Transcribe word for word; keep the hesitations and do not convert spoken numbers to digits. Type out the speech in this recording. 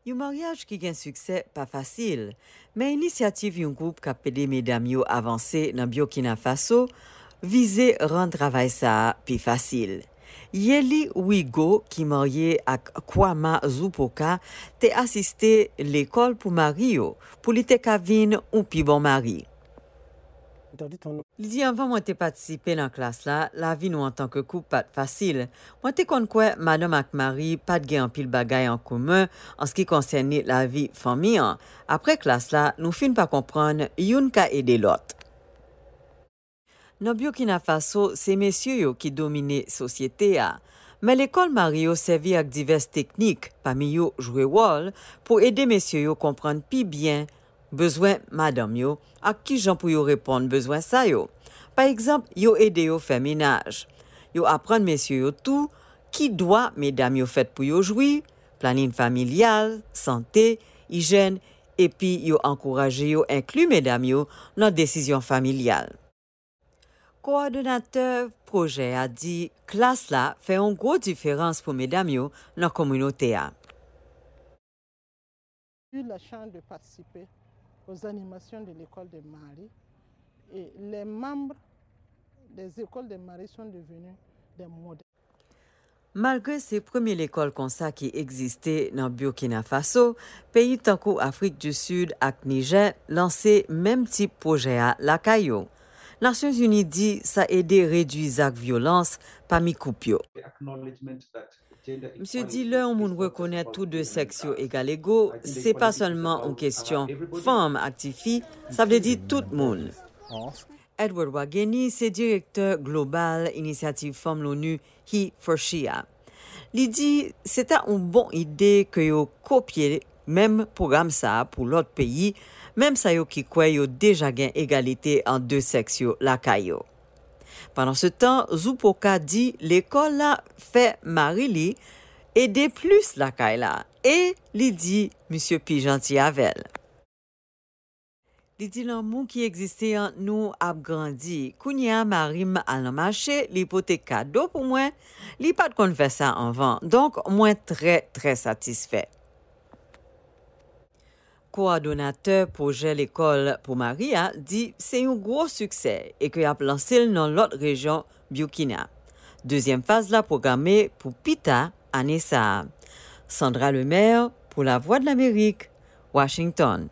Yon maryaj ki gen siksè pa fasil, men inisyativ yon gwoup k ap ede medam yo avanse nan Burkina Faso vize rann travay sa a pi fasil. Yeli Wigo, ki marye ak Kwama Zupoka, te asiste lekòl pou mari yo, pou li te ka vin yon pi bon mari. Li di, anvan mwen te patisipe nan klas la, lavi nou antanke koup pa t fasil. Mwen te konn kwè madanm ak mari pa t gen anpil bagay an komen an se ki konsène lavi fanmi an. Apre klas la, nou fin pa konprann youn ka ede lòt. Nan Burkina Faso, se mesye yo ki domine sosyete a. Men lekòl mari yo sèvi ak divès teknik, pami yo jwe wòl, pou ede mesye yo konprann pi byen bezwen madanm yo ak kijan pou yo reponn bezwen sa yo. Pa egzanp, yo ede yo fè menaj. Yo aprann mesye yo tou ki dwa medam yo fèt pou yo jwi, planin familyal, sante, ijèn, epi yo ankouraje yo enkli medam yo nan desizyon familyal. Kowòdonatè pwojè a di klas la fè yon gwo diferans pou medam yo nan kominote a. Eu la chance de participer aux animations de l'école des Maris et les membres des écoles des Maris sont devenus des modèles. Malgre se premye lekòl konsa ki egziste nan Burkina Faso, peyi tankou Afrik di Sid ak Nijè lanse menm tip pwojè a lakay yo. Nasyonzini di sa ede redui zak vyolans pami koup yo. Misye di lè yon moun rekonèt tou de sèks yo egalego, se pa sèlman yon kesyon fanm ak tifi, sa vle di tout moun. Edward Wageni se direktè global Inisyativ Fanm Loni He for She a. Li di se ta yon bon ide ke yo kopye menm pwogram sa a pou lòt peyi, menm sa yo ki kwè yo deja gen egalite ant de sèks yo lakay yo. Pandansetan, Zupoka di lekòl la fè mari li ede plis lakay la e li di misye pi janti avè l. Li di lanmou ki egziste ant nou ap grandi. Kounye a mari m al nan mache, li pote kado pou mwen, li pa t konn fè sa anvan. Donk, mwen trè, trè satisfè. Kowòdonatè pwojè lekòl pou mari a di se yon gwo siksè e ke y ap lanse l nan lòt rejyon Burkina. Dezyèm faz la pwograme pou pita ane sa a. Sandra Lemaire pou Lavwadlamerik, Washington.